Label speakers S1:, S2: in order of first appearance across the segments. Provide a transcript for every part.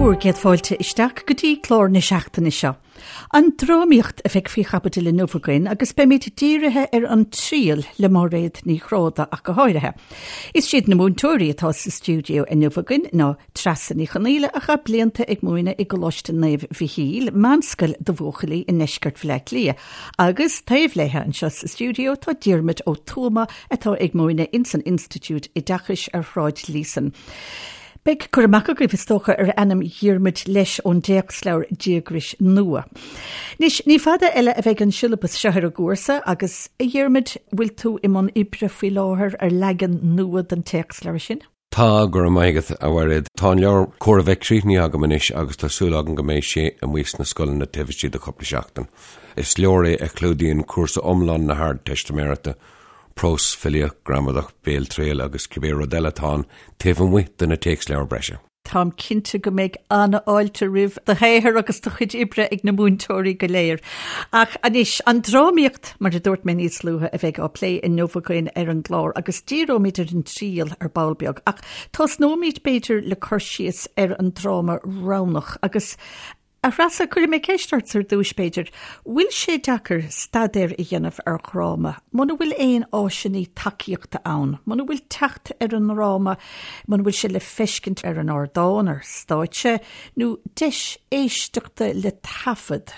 S1: Bhur gcéad fáilte isteach go dtí clár na seachtaine seo. An drámaíocht a bheidh faoi chaibidil inniu againn agus beimid dírithe ar An Triail le Máiréad Ní Ghráda ach go háirithe. Is iad na múinteoirí atá sa stiúideo inniu againn ná Treasa Ní Chonaola a chaith blianta ag múineadh i gColáiste Naomh Mhichíl, meánscoil do bhuachaillí i ndeisceart Bhaile Átha Cliath, agus taobh léi anseo sa stiúideo tá Diarmuid Ó Tuama atá ag múineadh ins an Institiúid Oideachais ar Shráid Líosain. Beidh cur amach agaibh, is dócha, ar ainm Dhiarmuid leis ón dtéacsleabhar Díograis Nua. Anois, ní fada eile a bheidh an siollabas seo ar an gcúrsa agus, a Dhiarmuid, bhfuil tú i mbun oibre faoi láthair ar leagan nua den téacsleabhar sin?
S2: Tá, go raibh maith agat, a Mhairéad. Tá an leabhar chóir a bheith críochnaithe agam anois agus tá súil agam go mbeidh sé amuigh sna scoileanna taobh istigh de chúpla seachtain. Is leabhar é a chlúdaíonn cúrsa iomlán na hArdteistiméireachta, prós, filíocht, gramadach, béaltriail agus cibé rud eile atá ann taobh amuigh de na téacsleabhair breise.
S1: Táim cinnte go mbeidh an-fháilte roimh do shaothar agus do chuid oibre ag na múinteoirí go léir. Ach anois, an drámaíocht, mar a dúirt mé níos luaithe, a bheidh á plé inniu againn ar an gclár agus díreoimid ar an triail ar ball beag. Ach tosnóimid, b'fhéidir, le cur síos ar an dráma roghnach agus A Threasa, cuirfidh mé ceist ort ar dtúis, b'fhéidir. Bhfuil sé deacair staidéar a dhéanamh ar dhráma muna bhfuil aon áiseanna tacaíochta ann, muna bhfuil teacht ar an ndráma, muna bhfuil sé le feiscint ar an ardán, ar stáitse, nó deis éisteachta le taifead?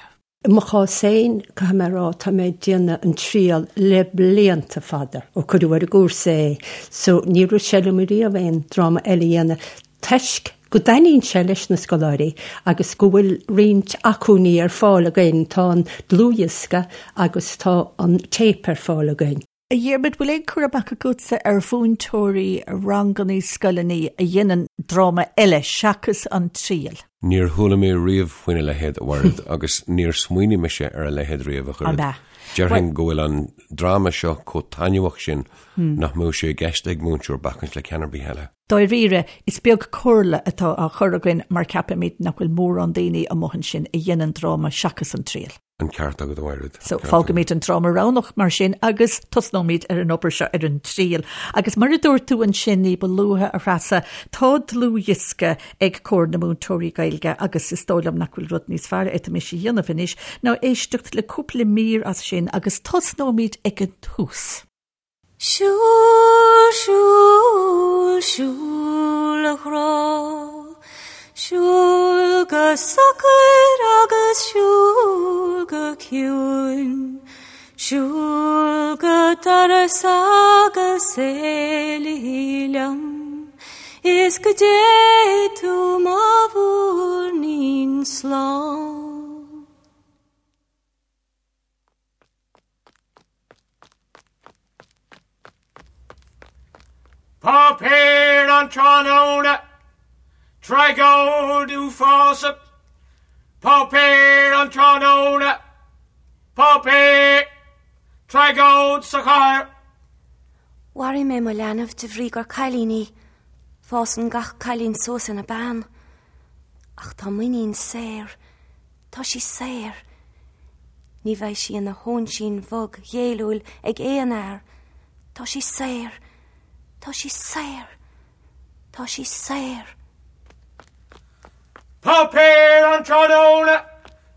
S3: I mo chás féin, caithfidh mé a rá, tá mé ag déanamh an triail le blianta fada, ó cuireadh ar an gcúrsa é, so níor rith sé liom ariamh aon dráma eile a dhéanamh toisc go dtaitníonn sé leis na scoláirí agus go bhfuil roinnt acmhainní ar fáil againn, tá an dlúthdhiosca agus tá an téip ar fáil againn.
S1: A Dhiarmaid, bhfuil aon cur amach agatsa ar mhúinteoirí rangannaí scoileanna a dhéanann dráma eile seachas An Triail?
S2: Níor chuala mé riamh faoina leithéid, a Mhairéad, agus níor smaoinigh mise ar a leithéid riamh, a
S1: Ab ea?
S2: Déarfainn go bhfuil an dráma seo chomh taitneamhach sin nach mbeadh sé i gceist ag múinteoir bacaint le ceann ar bith eile.
S1: Dáiríre, is beag comhairle atá á chur againn mar ceapaimid nach bhfuil mórán daoine amuigh ansin a dhéanann dráma seachas an triail.
S2: An ceart agat, a Mhairéad.
S1: So, fágfaimid an dráma roghnach mar sin agus tosnóimid ar an obair seo ar an triail. Agus mar a dúirt tú ansin ní ba luaithe, a Threasa, tá dlúthdhiosca ag Comhar na Múinteoirí Gaeilge agus is dóigh liom nach bhfuil rud níos fearr a fhéadfaimis a dhéanamh anois ná éisteacht le cúpla mír as sin agus tosnóimid ag an tús.
S4: Siúil, siúil, siúil a ghrá, Siúil go socair agus siúil go ciúin, Siúil go doras agus éalaigh liom, Is go dté tú mo mhúirnín slán.
S5: Páipéar an tráthnóna, Tragóid uafásach. Páipéar an tráthnóna, Páipéar, Tragóid sa chathair.
S4: Mharaigh mé mo leanbh de bhrí gur cailín í. Fásann gach cailín suas ina bean. Ach tá m'iníon saor. Tá sí saor. Ní bheidh sí ina hóinsín bhog ghéilliúil ag aon fhear. Tá sí saor. Tá sí saor. Tá sí saor.
S5: Páipéar an tráthnóna,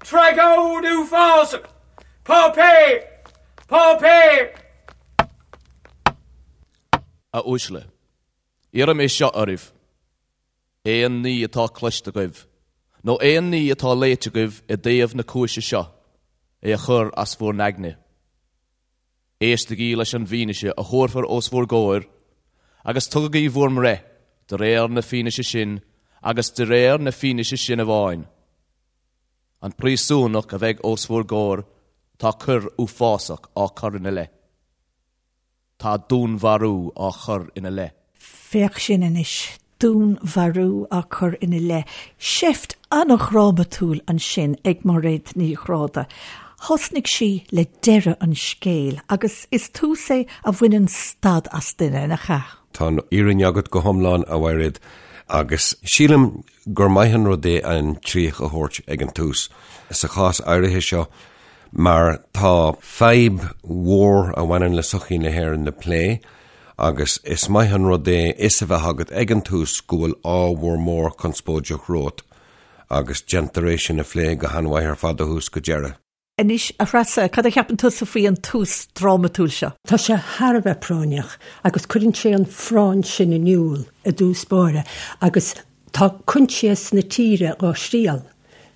S5: Tragóid uafásach. Páipéar! Páipéar!
S6: A uaisle, iarraim é seo oraibh. Aon ní atá cloiste agaibh, nó aon ní atá léite agaibh i dtaobh na cúise seo, é a chur as bhur n-aigne. Éistigí leis an bhfianaise a thabharfar os bhur gcomhair, agus tugaigí bhur mbreith de réir na fianaise sin agus de réir na fianaise sin amháin. An príosúnach a bheidh os bhur gcomhair, tá coir uafásach á cur ina leith. Tá dúnmharú á chur ina leith.
S1: Féach sin anois, dúnmharú á cur ina leith. Seift an-dhrámatúil ansin ag Máiréad Ní Ghráda. Thosnaigh sí le deireadh an scéil agus is tús é a bhaineann stad as duine, nach ea?
S2: Tá an fhírinne agat go hiomlán, a Mhairéad, agus sílim gur maith an rud é an chríoch a thabhairt ag an tús. Sa chás áirithe seo, mar tá fadhb mhór a bhaineann le sochaí na hÉireann le plé agus is maith an rud é fhios a bheith agat ag an tús go bhfuil ábhar mór conspóideach romhat. Agus déantar é sin a phlé go han-mhaith ar fad ó thús go deireadh.
S1: Anois, a Threasa, cad a cheapann tusa faoi an tús drámatúil seo?
S3: Tá sé thar a bheith práinneach agus cuireann sé an phráinn sin in iúl i dtús báire agus tá coinsias na tíre dhá thriail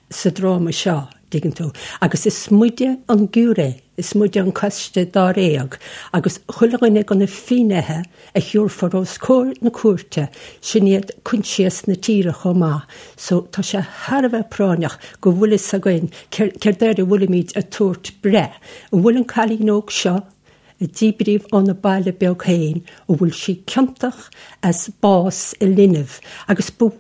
S3: sa dráma seo, dtuigeann tú, agus is muide an giúiré, is muide an coiste dáréag agus chuile dhuine de na finnéithe a thiúrfar os comhair na cúirte, sin iad coinsias na tíre chomh maith. So tá sé thar a bheith práinneach go bhfuil fhios againn céard air a bhfuilimid ag tabhairt breith. An bhfuil an cailín óg seo, a díbríodh óna baile beag féin, an bhfuil sí ciontach as bás a linbh? Agus ba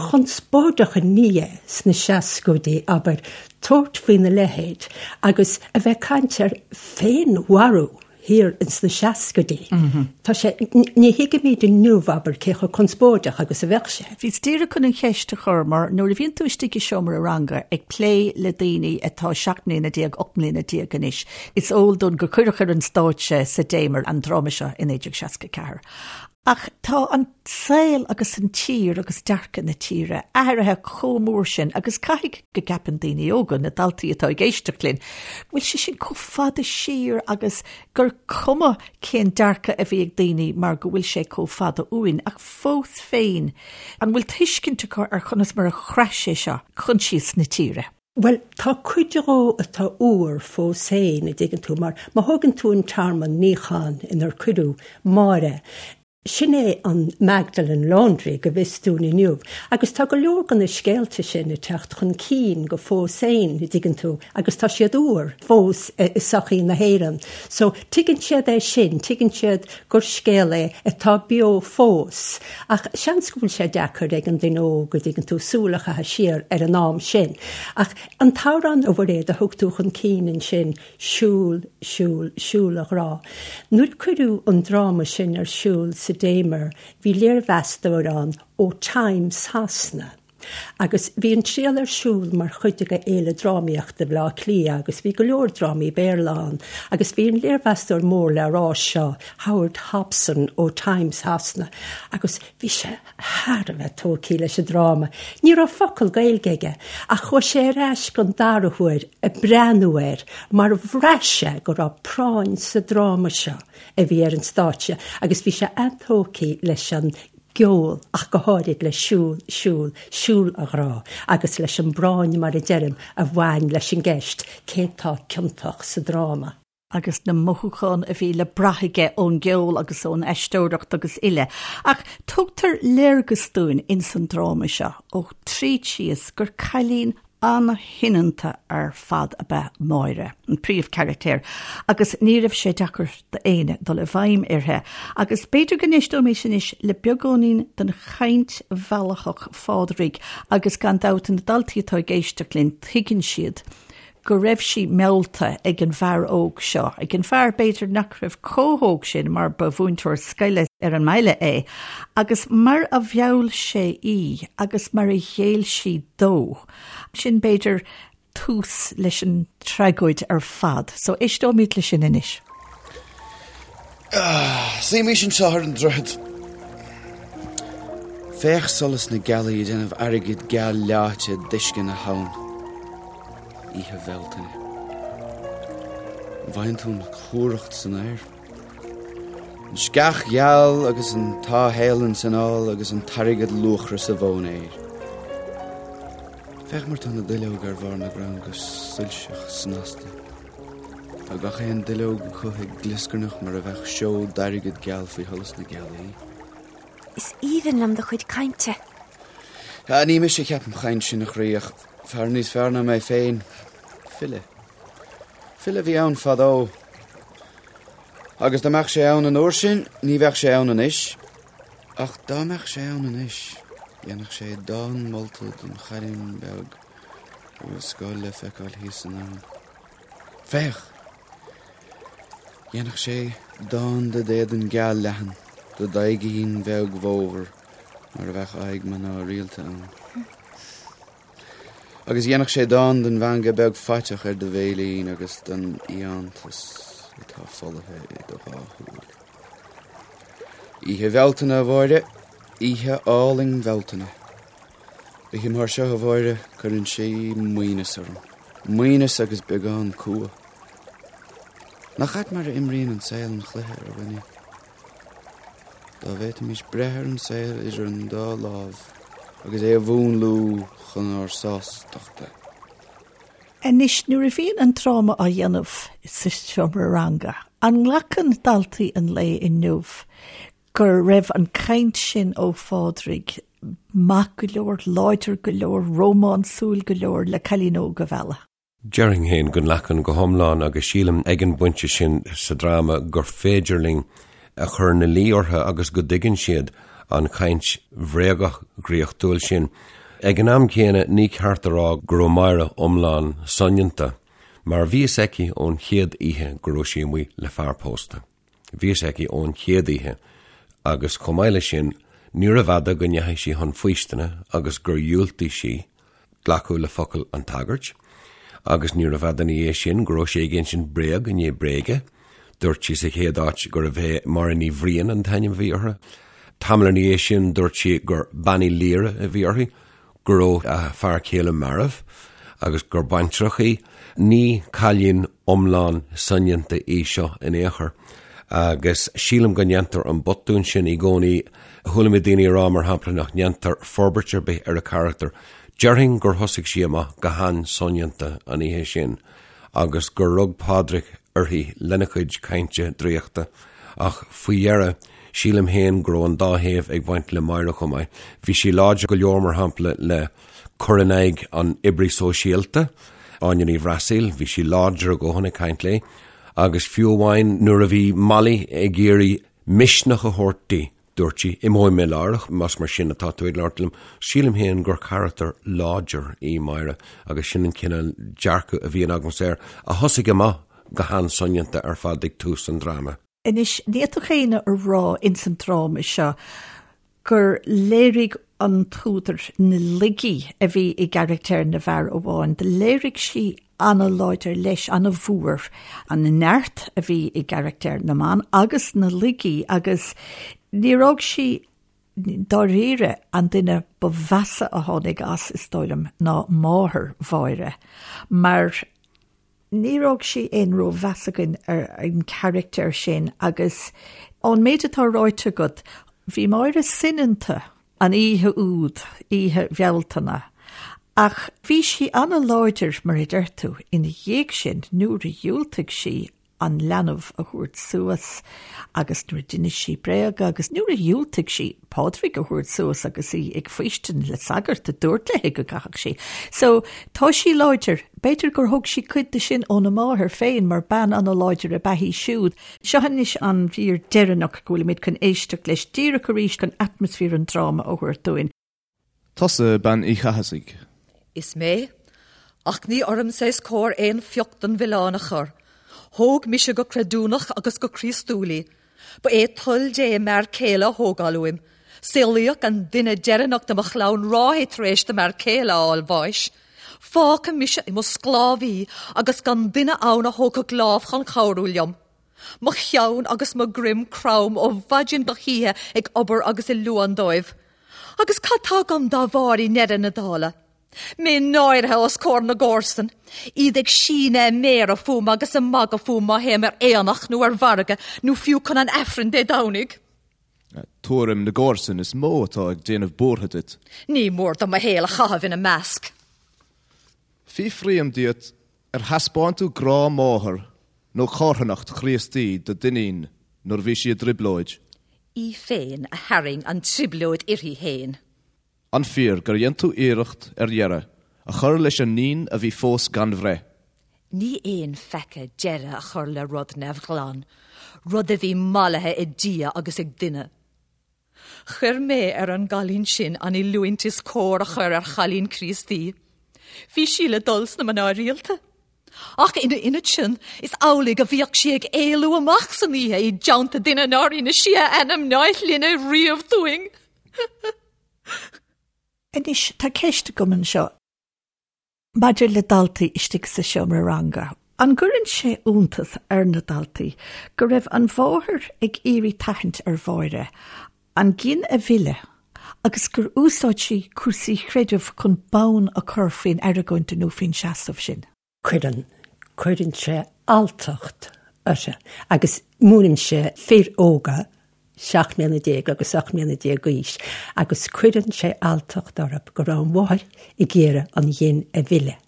S3: chonspóideach an ní é sna seascaidí, abair, tabhairt faoina leithéid agus a bheith ag caint ar féinmharú. thiar ins na seascaidí. Tá sé, ní thuigimid inniu, abair, cé chomh conspóideach agus a bheadh sé.
S1: Bhíos díreach chun an cheist a chur mar nuair a bhíonn tú istigh i seomra ranga ag plé le daoine atá 17 mbliana, 18 mbliana anois, is eol dúinn gur cuireadh ar an stáitse sa Damer an dráma seo i 1964. Ach tá an saol agus an tír agus dearcadh na tíre athraithe chomh mór sin agus caithfidh go gceapann daoine óga, na daltaí atá ag éisteacht linn, go bhfuil sé sin chomh fada siar agus gur cuma cén dearcadh a bhí ag daoine mar go bhfuil sé chomh fada uainn. Ach fós féin, an bhfuil tuiscint acu ar chonas mar a chraith sé seo coinsias na tíre?
S3: Bhuel, tá cuid dhó atá úr fós féin, a dtuigeann tú, mar má thógann tú an tearmann níocháin inar cuireadh Máire, sin é an Magdalen Laundry go bhfios dúinn inniu, agus tá go leor de na scéalta sin ag teacht chun cinn go fós féin, a dtuigeann tú, agus tá siad úr fós i sochaí na hÉireann. So, tuigeann siad é sin, tuigeann siad gur scéal é atá beo fós. Ach seans go bhfuil sé deacair ag an duine óg, a dtuigeann tú, súil a chaitheamh siar ar an am sin. Ach an t-amhrán, a Mhuiréad, a thug tú chun cinn ansin, Siúl, siúl, siúl a ghrá. Nuair a cuireadh an dráma sin ar siúl sa Damer, bhí léirmheastóir ann ó Times Shasana. Agus bhí an triail ar siúl mar chuid de Fhéile Drámaíochta Bhaile Átha Cliath agus bhí go leor drámaí Béarla ann agus bhí an léirmheastóir mór le rá seo, Howard Hopson ó Times Shasana, agus bhí sé thar a bheith tógtha leis an dráma. Ní raibh focal Gaeilge aige ach chuaigh sé ar ais don dara huair ag breathnú air mar bhraith sé go raibh práinn sa dráma seo a bhí ar an stáitse agus bhí sé an-tógtha leis an gceol ach go háirid le Siúl, Siúl, Siúl a Ghrá agus leis an bpráinn, mar a deirim, a bhain leis an gceist cé tá ciontach sa dráma.
S1: agus na mothúcháin a bhí le brath aige ón gceol agus ón aisteoireacht agus uile. Ach tugtar léargas dúinn ins an dráma seo ó tríd síos gur cailín an-shoineanta ar fad ab ea Máire, an príomhcharachtar, agus ní raibh sé deacair d'éinne dul i bhfeidhm uirthi. Agus b'fhéidir go n-éisteoimis anois le beagáinín den chaint mheallthach Phádraig agus gan dabht na daltaí atá ag éisteacht linn tuigeann siad go raibh sí meallta ag an bhfear óg seo, ag an bhfear b'fhéidir nach raibh chomh hóg sin mar ba mhúinteoir scoile ar an mbaile é, agus mar a mheall sé í agus mar a ghéill sí dó. Sin b'fhéidir tús leis an tragóid ar fad. So éisteoimid le sin anois.
S7: Suímís anseo ar an droichead. Féach solas na gealaí ag déanamh airgead geal leáite d'uisce na habhann. Oíche Bhealtaine. An bhfaigheann tú an chumhracht san aer? An sceach gheal agus an táthshéalann san ál agus an t-airgead luachra sa mhóinéar. Féach mar tá na duilleoga ar bharr na gcrann go soilseach snasta. Tá gach aon duilleog acu ag glioscarnach mar a bheadh seó d'airgead geal faoi sholas na gealaí.
S4: Is aoibhinn liom do chuid cainte.
S7: Ní mise a cheap an chaint sin, a chroí, ach fear níos fearr ná mé féin. File. File a bhí ann fadó. Agus dá mbeadh sé ann an uair sin, ní bheadh sé ann anois. Ach dá mbeadh sé ann anois, dhéanfadh sé dán molta don chailín beag a bhfuil scoil le feiceáil thíos san abhainn. Féach! Dhéanfadh sé dán de d'éadan geal leathan, de d'aghaidhín bheag bhodhar mar a bheadh aghaidh mná rialta ann. Agus dhéanfadh sé dán don mheangadh beag faiteach ar do bhéilín agus don fhiántas atá folaithe i do dhá shúil. Oíche Bhealtaine, a Mháire, oíche álainn Bhealtaine. Oíche mar seo, a Mháire, cuireann sí maoithneas orm. Maoithneas agus beagán cumha. Nach ait mar a imríonn an saol an chluiche ar dhuine? Dá bhféadfaimis breith ar an saol idir an dá lámh agus é a mhúnlú chun ár sástachta.
S1: Anois, nuair a bhíonn an dráma á dhéanamh sa seomra ranga, an nglacann daltaí an lae inniu go raibh an chaint sin ó Phádraig maith go leor, láidir go leor, rómánsúil go leor le cailín óg a mhealladh?
S2: Déarfainn féin go nglacann go hiomlán agus sílim ag an bpointe sin sa dráma gur féidir linn a chur ina luí orthu agus go dtuigeann siad an chaint bhréagach dhraíochtúil sin. Ag an am céanna ní ceart a rá go raibh Máire iomlán soineanta mar bhí fhios aici ón chéad oíche go raibh sí amuigh le fear pósta. Bhí fhios aici ón chéad oíche agus chomh maith leis sin níorbh fhada go ndeachaigh sí chun faoistine agus gur dhiúltaigh sí glacadh le focal an tsagairt agus níorbh fhada ina dhiaidh sin go raibh sí ag insint bréag i ndiaidh bréige. Dúirt sí sa chéad áit gurbh é Máire Ní Bhriain an t-ainm a bhí uirthi. Tamall ina dhiaidh sin dúirt sí gur Bean Uí Laoire a bhí uirthi. go raibh a fear céile marbh agus gur baintreach í. Ní cailín iomlán soineanta í seo in aon chor agus sílim go ndéantar an botún sin i gcónaí. Chuala mé daoine ag rá, mar shampla, nach ndéantar forbairt ar bith ar a carachtar. Déarfainn gur thosaigh sí amach go han-soineanta an oíche sin agus gur rug Pádraig uirthi lena chuid cainte draíochta ach faoi dheireadh, Sílim féin go raibh an dá thaobh ag baint le Máire chomh maith. Bhí sí láidir go leor, mar shampla, le cur in aghaidh an oibrí sóisialta, Áine Ní Bhreasaíl, bhí sí láidir a dhóthain ag caint léi, agus fiú amháin nuair a bhí Molly ag iarraidh misneach a thabhairt di, dúirt sí, 'Imeoidh mé láithreach, más mar sin atá tú ag labhairt liom. Sílim féin gur charachtar láidir í Máire agus sin an cineál dearcadh a bhíonn agamsa air, a thosaigh amach go han-soineanta ar fad ag tús an dráma.
S1: Anois, ní fhéadfadh éinne a rá ins an dráma seo gur léirigh an t-údar na laigí a bhí i gcarachtair na bhfear amháin. Do léirigh sí ana-láidir leis, ana-mhór, an neart a bhí i gcarachtair na mban agus na laigí agus níor fhág sí dáiríre an duine ba mheasa a tháinig as, is dóigh liom, ná máthair Mháire, mar Níor fhág sí aon rómheas againn ar an charachtar sin agus ón méid atá ráite agat, bhí Máire soineanta an oíche úd, oíche Bhealtaine, ach bhí sí ana-láidir, mar a deir tú, ina dhiaidh sin nuair a dhiúltaigh sí an leanbh a thabhairt suas agus nuair a d'inis sí bréaga agus nuair a dhiúltaigh sí Pádraig a thabhairt suas agus í ag faoistin le sagart a dúirt léi go gcaithfeadh sí. So, tá sí láidir. B'fhéidir gur thóg sí cuid de sin óna máthair féin mar bean ana-láidir ab ea í siúd. Seo anois an mhír deireanach go bhfuilimid chun éisteacht leis díreach arís chun atmaisféar an dráma a thabhairt dúinn.
S6: Tusa Bean Uí Chathasaigh.
S8: Is mé. Ach ní ormsa is cóir aon phioc den mhilleán a chur. Thóg mise go creidiúnach agus go Críostúil í. Ba é toil Dé m'fhear céile a thógáil uaim. Saolaíodh an duine deireanach de mo chlann ráithe tar éis do m'fhear céile a fháil bháis. Fágtha mise i mo sclábhaí agus gan duine ann a thógfadh lámh chun cabhrú liom. Mo cheann agus mo dhroim crom ó mhaidin go hoíche ag obair agus ag luan dóibh. Agus cad tá agam dá bharr i ndeireadh na dála? Mé náirithe os comhair na gcomharsan, iad ag síneadh a méara fúm agus ag magadh fúm má théim ar aonach nó ar mhargadh nó fiú chun an Aifrinn Dé Domhnaigh.
S6: Tuairim na gcomharsan is mó atá ag déanamh buartha duit.
S8: Ní mór dom mo shaol a chaitheamh ina measc.
S6: Fiafraím díot Ar thaispeáin tú grá máthar nó carthanacht Chríostaí do d'iníon nuair a bhí sí i dtrioblóid?
S8: Í féin a tharraing an trioblóid uirthi féin.
S6: An fíor gur dhein tú iarracht ar dheireadh a chur leis an níon a bhí fós gan bhreith?
S8: Ní aon pheaca deireadh a chur le rud neamhghlan, rud a bhí mallaithe ag Dia agus ag duine. Chuir mé ar an gcailín sin an oiliúint is cóir a chur ar chailín Críostaí. Bhí sí le dul sna mná rialta. Ach ina ionad sin, is amhlaidh a bhíodh sí ag éalú amach san oíche i dteannta duine nár inis sí a ainm ná a shloinne riamh dúinn.
S1: Anois, tá ceist agam anseo. Maidir le daltaí istigh sa seomra ranga, an gcuireann sé iontas ar na daltaí go raibh an mháthair ag iarraidh tathant ar Mháire an gin a mhilleadh Agus gur úsáid sí cúrsaí creidimh chun bonn a chur faoin argóint nó faoin seasamh sin.
S3: Cuireann. Cuireann sé alltacht uirthi. Agus múineann sé fir óga, 17 mbliana agus 18 mbliana d'aois, agus cuireann sé alltacht orthu go raibh an mháthair ag iarraidh an ghin a mhilleadh.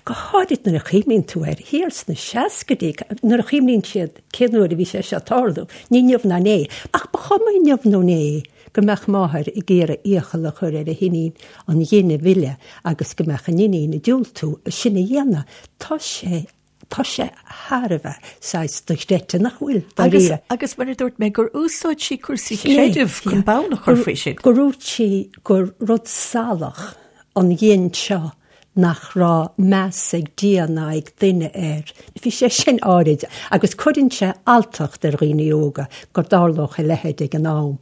S3: Go háirid nuair a chuimhníonn tú air thiar sna seascaidí, nuair a chuimhníonn siad cén uair a bhí sé seo ag tarlú, ní inniu ná inné. Ach ba chuma inniu nó inné go mbeadh máthair ag iarraidh iachall a chur ar a hiníon an ghin a mhilleadh agus go mbeadh an iníon ag diúltú sin a dhéanamh. Tá sé, tá sé thar a bheith saghas dochreidte, nach bhfuil,
S1: dáiríre? Agus mar a dúirt mé, gur úsáid sí cúrsaí creidimh chun bonn a chur faoi sin.
S3: Gur dhúirt sí gur rud salach an ghin seo nach raibh meas ag Dia ná ag duine air. Bhí sé sin áirid agus cuireann sé alltacht ar dhaoine óga go dtarlódh a leithéid ag an am.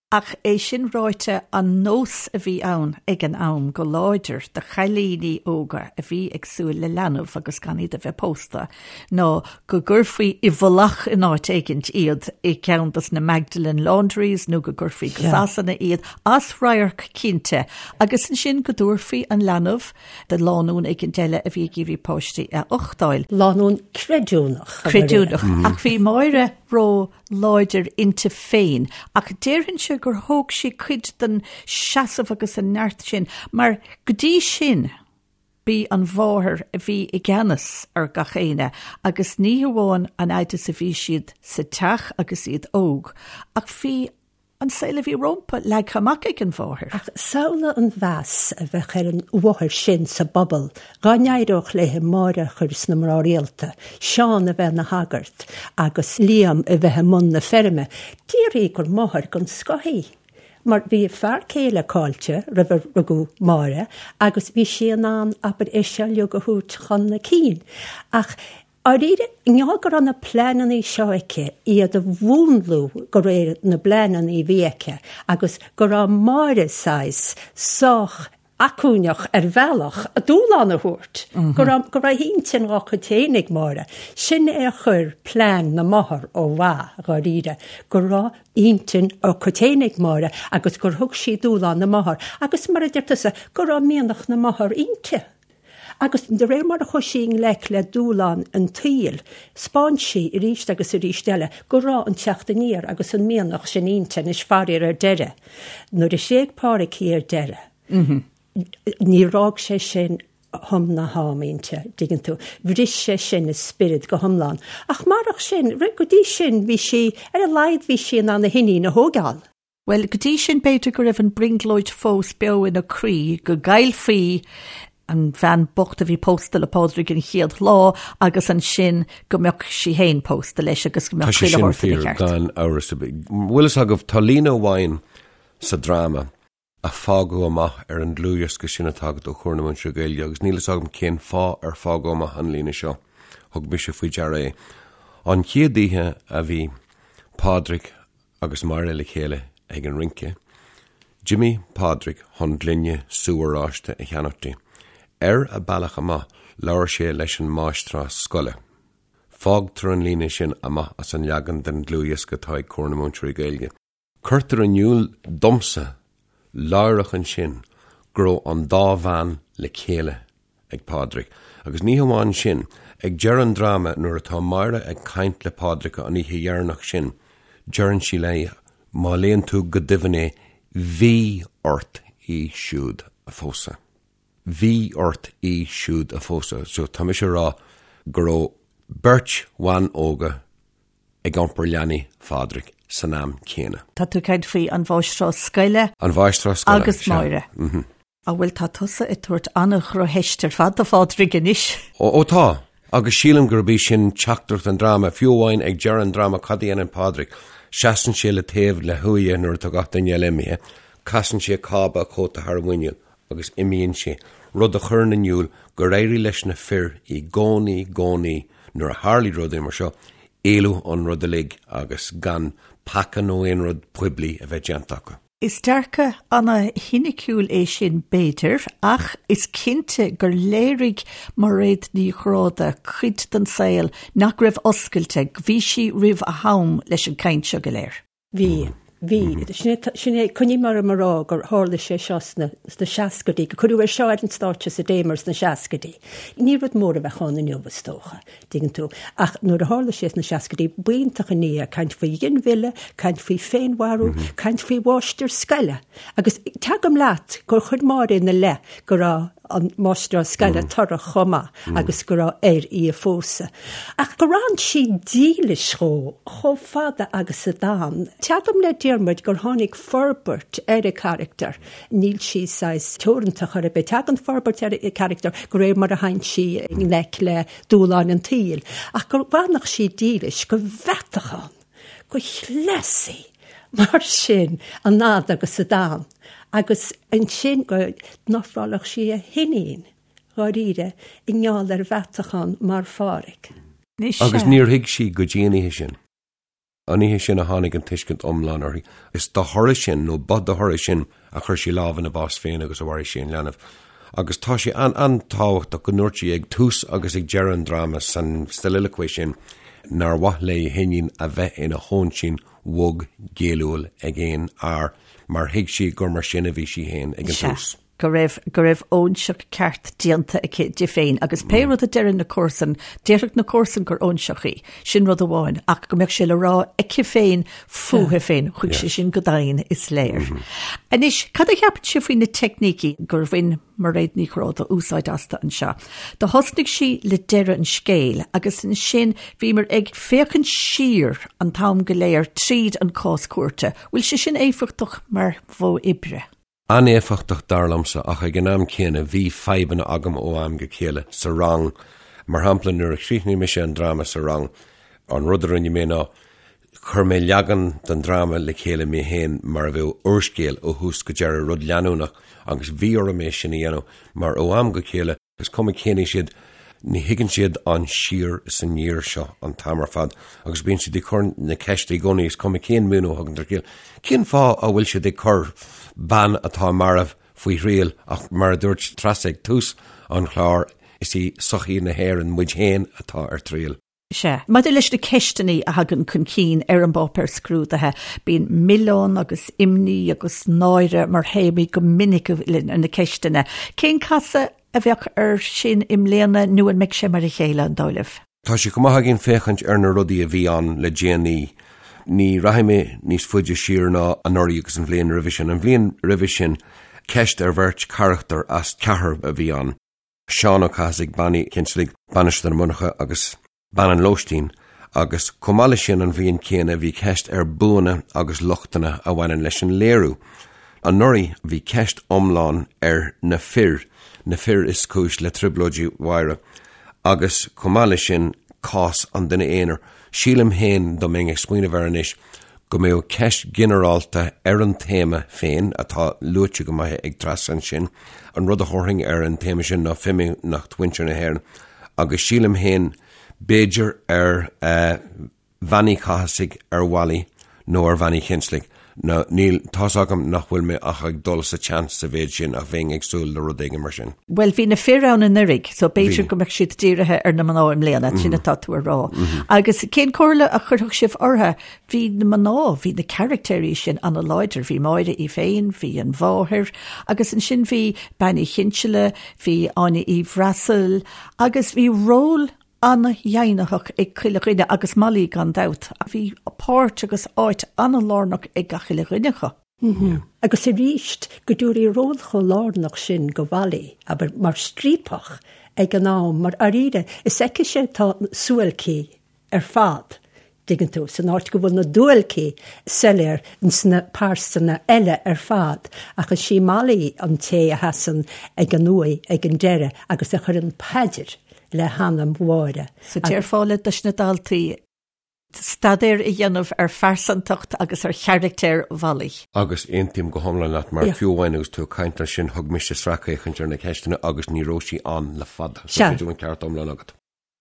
S1: Ach é sin ráite, an nós a bhí ann ag an am go láidir do chailíní óga a bhí ag súil le leanbh agus gan iad a bheith pósta ná go gcuirfí i bhfolach in áit éigint iad i gceann dos na Magdalene Laundries nó go gcuirfí go Sasana iad, as radharc cinnte, agus ansin go dtabharfaí an leanbh do lánúin éigint eile a bhí ag iarraidh páistí a uchtáil.
S3: Lánúin creidiúnach.
S1: Creidiúnach. Ach bhí Máire ró láidir inti féin, ach déarfainnse gur thóg sí cuid den seasamh agus an neart sin, mar go dtí sin, B'í an mháthair a bhí i gceannas ar gach éinne agus ní hamháin an fhaid is a bhí siad sa teach agus iad óg, ach bhí an saol a bhí rómpa leagtha amach ag an mháthair.
S3: Ach samhlaigh an mheas a bheadh ar an mháthair sin sa bpobal dhá n-éireodh léi Máire a chur sna mná rialta, Seán a bheith ina shagart agus Liam a bheith i mbun na feirme. Déarfaí gur máthair den scoth í. Mar bhí a fear céile caillte roimh a rugadh Máire agus bhí sí in ann, abair, é seo uilig a thabhairt chun a cinn. Ach, dháiríre, i ngeall go raibh na pleanannaí seo aici, iad a mhúnlú de réir na bpleanannaí a bhí aici agus go raibh Máire saghas sách acmhainneach ar bhealach a dúshlán a thabhairt, go raibh go raibh intinn dá cuid féin ag Máire. Sin é a chuir plean na máthar ó mhaith, dháiríre, go raibh intinn dá cuid féin ag Máire agus gur thug sí dúshlán na máthar agus, mar a deir tusa, go raibh mianach na máthar inti. Agus de réir mar a chuaigh sí i ngleic le dúshlán an tsaoil, 'spáin sí arís agus arís eile go raibh an teacht aniar agus an mianach sin inti anois faraor ar deireadh. Nuair a thréig Pádraic í ar deireadh, níor fhág sé sin hum ná ham inti, dtuigeann tú. Bhris sé sin a spiorad go hiomlán. Ach marach sin, go dtí sin, bhí sí, ar a laghad bhí sí in ann a hiníon a thógáil.
S1: Bhuel, go dtí sin b'fhéidir go raibh an brionglóid fós beo ina croí go gcaillfí an bhean bocht a bhí pósta le Pádraig an chéad lá agus ansin go mbeadh sí féin pósta leis agus go mbeadh
S2: Tá sé sin fíor, gan amhras ar bith. Bhfuil fhios agaibh, tá líne amháin sa dráma a fágadh amach ar an dlúthdhiosca sin atá agat ó Chomhar na Múinteoirí Gaeilge agus níl fhios agam cén fáth ar fágadh amach an líne seo. Thug mise faoi deara é. An chéad oíche a bhí Pádraig agus Máire le chéile ag an rince, d'imigh Pádraig chun gloine sú oráiste a cheannach di. Ar a bealach amach, labhair sé leis an máistreás scoile. Fágtar an líne sin amach as an leagan den dlúthdhiosca atá ag Comhar na Múinteoirí Gaeilge. Cuirtear in iúl domsa láithreach ansin go raibh an dá bhean le chéile ag Pádraig. Agus ní hamháin sin, ag deireadh an dráma nuair atá Máire ag caint le Pádraig an oíche dheireanach sin, deireann sí léi, má léann tú go doimhin é, bhí ort í siúd a phósadh. Bhí ort í siúd a phósadh. So tá mise a rá go raibh beirt bhan óga ag iompar leanaí Phádraig san am céanna.
S1: Tá tú ag caint faoi an mháistreás scoile.
S2: An mháistreás scoile,
S1: Agus Máire. Á bhuel tá tusa ag tabhairt an-dhrochtheist ar fad do Phádraig anois.
S2: Ó, ó tá. Agus sílim gurb í sin teachtaireacht an dráma. Fiú amháin ag deireadh an dráma cad a dhéanann Pádraig? Seasann sé le taobh le huaighe nuair atá gach duine eile imithe. Casann sé cába a chóta thar a mhuiníl agus imíonn sé, rud a chuireann in iúl gur éirigh leis na fir i gcónaí, gcónaí nuair a tharlaigh rudaí mar seo, éalú ón rud uilig agus gan peaca nó aon rud poiblí a bheith déanta acu.
S1: Is dearcadh ana-shoiniciúil é sin, b'fhéidir, ach is cinnte gur léirigh Mairéad Ní Ghráda cuid den saol nach raibh oscailte, bhí sí roimh a ham leis an gcaint seo go léir.
S3: Bhí. Bhí. Sin é, coinním orm a rá gur tharla sé seo sna seascaidí, gur cuireadh é seo ar an stáitse sa Damer sna seascaidí. Ní rud mór a bheadh ann inniu, is dócha, dtuigeann tú. Ach nuair a tharla sé sna seascaidí, b'iontach an ní é, caint faoi ghinmhilleadh, caint faoi féinmharú, caint faoi mháistir scoile. Agus tagaim leat gur chuir Máire ina leith go raibh an máistreás scoile torrach chomh maith agus go raibh air í a phósadh. Ach gur fhan sí dílis dhó chomh fada agus a d'fhan. Tagaim le Diarmuid gur tháinig forbairt ar a carachtar. Níl sí saghas teoranta chor ar bith. Tagann forbairt ar a carachtar de réir mar a théann sí i ngleic le dúshláin an tsaoil. Ach go bhfanfadh sí dílis, go mheatachán, go chleasaí mar sin an fhad agus a d'fhan. Agus ansin go n-ofrálfadh sí a hiníon dháiríre i ngeall ar mheatachán mar Phádhraic.
S2: Agus níor thuig sí go dtí an oíche sin. An oíche sin a tháinig an tuiscint iomlán uirthi. Is dá thoradh sin, nó ba dá thoradh sin, a chuir sí lámh ina bás féin agus a mharaigh sí an leanbh. Agus tá sé an-tábhachtach go ndúirt sí ag tús agus ag deireadh an dráma san soliloquy sin nár mhaith léi a hiníon a bheith ina hóinsín bhog ghéilliúil ag aon fhear mar thuig sí gur mar sin a bhí sí féin ag an tús.
S1: go raibh, go raibh óinseach ceart déanta aici di féin agus pé rud a deireann na comharsain, déarfadh na comharsain gur óinseach í, sin rud amháin, ach go mbeadh sé le rá aici féin fúithi féin, chuaigh sé sin go domhain, is léir. Anois, cad a cheapann sibh faoi na teicnící gur bhain Mairéad Ní Chróda úsáid astu anseo? Do thosnaigh sí le deireadh an scéil agus ansin bhíomar ag féachaint siar an t-am go léir tríd an cás cúirte. Bhfuil sé sin éifeachtach mar mhodh oibre?
S2: An-éifeachtach dar liomsa ach ag an am céanna bhí fadhbanna agam ó am go chéile sa rang. Mar shampla nuair a chríochnaigh mise an dráma sa rang, an rud a rinne mé ná chuir mé leagan den dráma le chéile mé féin mar a bheadh úrscéal ó thús go deireadh, rud leanúnach agus bhí orm é sin a dhéanamh mar ó am go chéile, Is cuma cén aois iad, ní thuigeann siad an siar is aniar seo an t-am ar fad agus bíonn siad ag cur na ceiste i gcónaí, is cuma cén múineadh a thugann tú ar Cén fáth a bhfuil siad ag cur bean atá marbh faoi thriail ach mar a dúirt Treasa ag tús an chláir, is í sochaí na hÉireann, muid féin, atá ar triail.
S1: Sea. Maidir leis na ceisteanna a thagann chun cinn ar an bpáipéar scrúdaithe, bíonn milleán agus imní agus náire mar théamaí go minic ar na ceisteanna. Cén casadh a bheadh air sin i mbliana nó an mbeidh sé mar a chéile, an dóigh libh?
S2: Tá sé chomh maith againn féachaint ar na rudaí a bhí ann le déanaí. Ní rachaidh mé níos faide siar ná anuraidh agus an bhliain roimhe sin. An bhliain roimhe sin, ceist ar bheirt charachtar as ceathrar a bhí ann. Seán Ó Cathasaigh, Bean Uí Chinsealaigh, Bainisteoir na Monarcha agus Bean an Lóistín, agus chomh maith leis sin an bhliain chéanna bhí ceist ar buanna agus lochtanna a bhaineann leis an léiriú. Anuraidh bhí ceist iomlán ar na fir, na fir is cúis le trioblóidí Mháire, agus chomh maith leis sin cás an duine aonair. Sílim féin, dá mbeinn ag smaoineamh air anois, go mbeadh ceist ghinearálta ar an téama féin, atá luaite go maith ag Treasa ansin. An rud a thabharfainn ar an téama sin ná fimíneacht mhuintir na hÉireann agus sílim féin, b'fhéidir ar Bhean Uí Chathasaigh, ar Mholly nó ar Bhean Uí Chinsealaigh. Nó níl, tá's agam nach bhfuil mé ach ag dul sa tseans sa mhéid sin ach bheinn ag súil le rud éigin mar sin.
S1: Bhuel, bhí na fir ann anuraidh, so b'fhéidir go mbeadh siad dírithe ar na mná i mbliana, sin atá tú a rá. Agus cén comhairle a chuirfeadh sibh orthu? Bhí na mná, bhí na caractéirí sin an-láidir, bhí Máire í féin, bhí an mháthair, agus ansin bhí Bean Uí Chinsealaigh, bhí Áine Uí Bhreasail, agus bhí ról an-dheimhnitheach ag chuile dhuine, agus Molly gan dabht. Bhí páirt agus áit an-lárnach ag gach uile dhuine acu.
S3: Agus arís, go dtabharfaí ról chomh lárnach sin go Mholly, abair, mar striapach ag an am, mar dháiríre, is aicise atá na suáilcí ar fad, dtuigeann tú, san áit go bhfuil na duáilcí soiléir ins na pearsana eile ar fad, ach is í Molly an té a sheasann ag an uaigh ag an deireadh agus a chuireann paidir le hanam Mháire.
S1: So déarfá le dos na daltaí staidéar a dhéanamh ar phearsantacht agus ar charachtar Mholly.
S2: Agus aontaím go hiomlán leat mar fiú amháin agus tú ag caint ansin thug mise sracfhéachaint ar na ceisteanna agus ní raibh sí ann le fada. So b'fhéidir go bhfuil an ceart iomlán agat.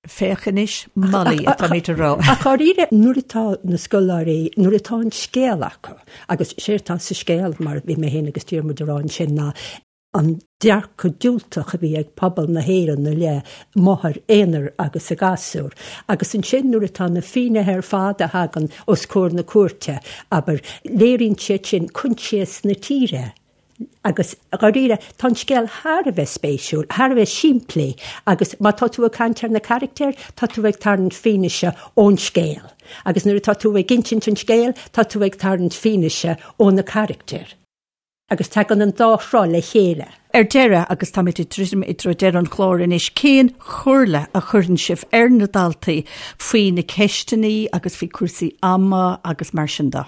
S1: Féach anois, Molly, atáimid a rá.
S3: Ach dháiríre, nuair atá na scoláirí, nuair atá an scéal acu, agus séard atá sa scéal, mar a bhí mé féin agus Diarmuid a rá ansin, ná. An dearcadh diúltach a bhí ag pobal na hÉireann i leith máthair aonair agus a gasúr. Agus ansin nuair atá na finnéithe ar fad a thagann os comhair na cúirte, abair, léiríonn siad sin coinsias na tíre. Agus dháiríre, tá an scéal thar a bheith spéisiúil, thar a bheith simplí agus má tá tú ag caint ar na carachtair, tá tú ag tarraingt fianaise ón scéal. Agus nuair atá tú ag insint an scéil, tá tú ag tarraingt fianaise ó na carachtair. Agus tagann an dá shruth le chéile.
S1: Ar deireadh, agus táimid ag druidim i dtreo deireadh an chláir anois, cén chomhairle a chuireann sibh ar na daltaí faoi na ceisteanna agus faoi chúrsaí ama agus mar sin de?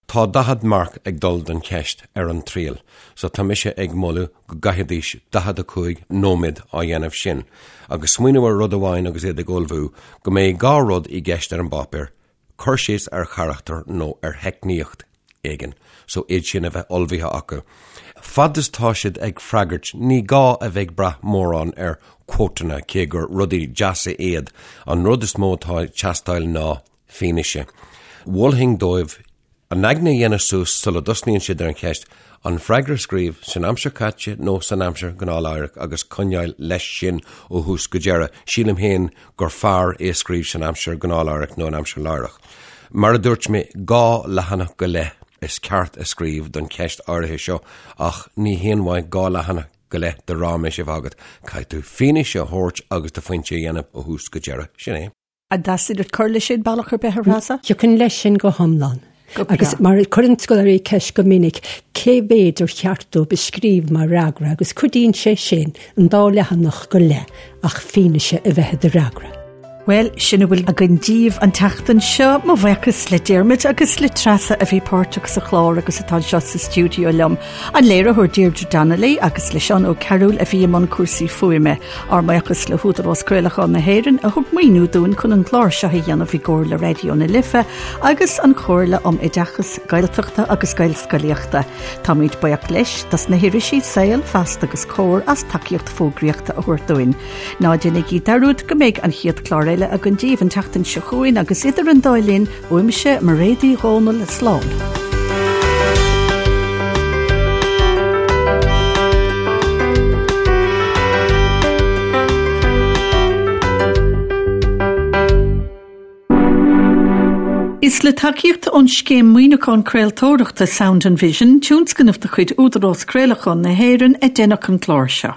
S2: Tá 40 marc ag dul don cheist ar an triail, so tá mise ag moladh go gcaithfidís 45 nóiméad á dhéanamh sin. Agus smaoineamh ar rud amháin agus iad ag ullmhú, go mbeidh dhá rud i gceist ar an bpáipéar, cur síos ar charachtar nó ar theicníocht éigin, so iad sin a bheith ullmhaithe acu. Fad is tá siad ag freagairt, ní gá a bheith ag brath mórán ar quoteanna, cé gur rudaí deasa iad, an rud is mó atá ag teastáil ná fianaise. Mholfainn dóibh a n-aigne a dhéanamh suas sula dtosnaíonn siad ar an cheist, an freagra a scríobh san aimsir chaite nó san aimsir ghnáthláithreach agus coinneáil leis sin ó thús go deireadh. Sílim féin gur fearr é a scríobh san aimsir ghnáthláithreach nó an aimsir láithreach. Mar a dúirt mé, dhá leathanach go leith is ceart a scríobh don cheist áirithe seo ach ní haon mhaith dhá leathanach go leith de ráiméis a bheith agat. Caithfidh tú fianaise a thabhairt agus do phointe a dhéanamh ó thús go deireadh. Sin é.
S1: An dteastaíonn uait cur leis sin bealach ar bith, a Threasa?
S3: Thiocfainn leis sin go hiomlán. Agus mar cuireann scoláirí ceist go minic cé mhéid ar cheart dóibh a scríobh mar fhreagra agus cuidíonn sé sin an dá leathanach go leith ach fianaise a bheith i do fhreagra.
S1: Bhuel, sin a bhfuil againn díbh an tseachtain seo. Mo bhuíochas le Diarmuid agus le Treasa a bhí páirteach sa chlár agus atá anseo sa stiúideo liom. An léiritheoir Deirdre Donnelly agus le Seán Ó Cearúil a bhí i mbun cúrsaí fuaime. Ár mbuíochas le hÚdarás Craolacháin na hÉireann a thug maoiniú dúinn chun an clár seo a dhéanamh i gcomhar le Raidió na Life agus an Chomhairle um Oideachas Gaeltachta agus Gaelscolaíochta. Táimid buíoch leis dos na hirisí Saol, Feasta agus Comhar as tacaíocht fógraíochta a thabhairt dúinn. Ná déanaigí dearúd go mbeidh an chéad chlár eile againn díbh an tseachtain seo chugainn agus idir an dá linn, Uaimse, Mairéad Uí Dhomhnaill, slán. Is le tacaíocht ón Scéim Maoiniúcháin Craoltóireachta Sound and Vision, tionscnamh de chuid Údarás Craolacháin na hÉireann, a deineadh an clár seo.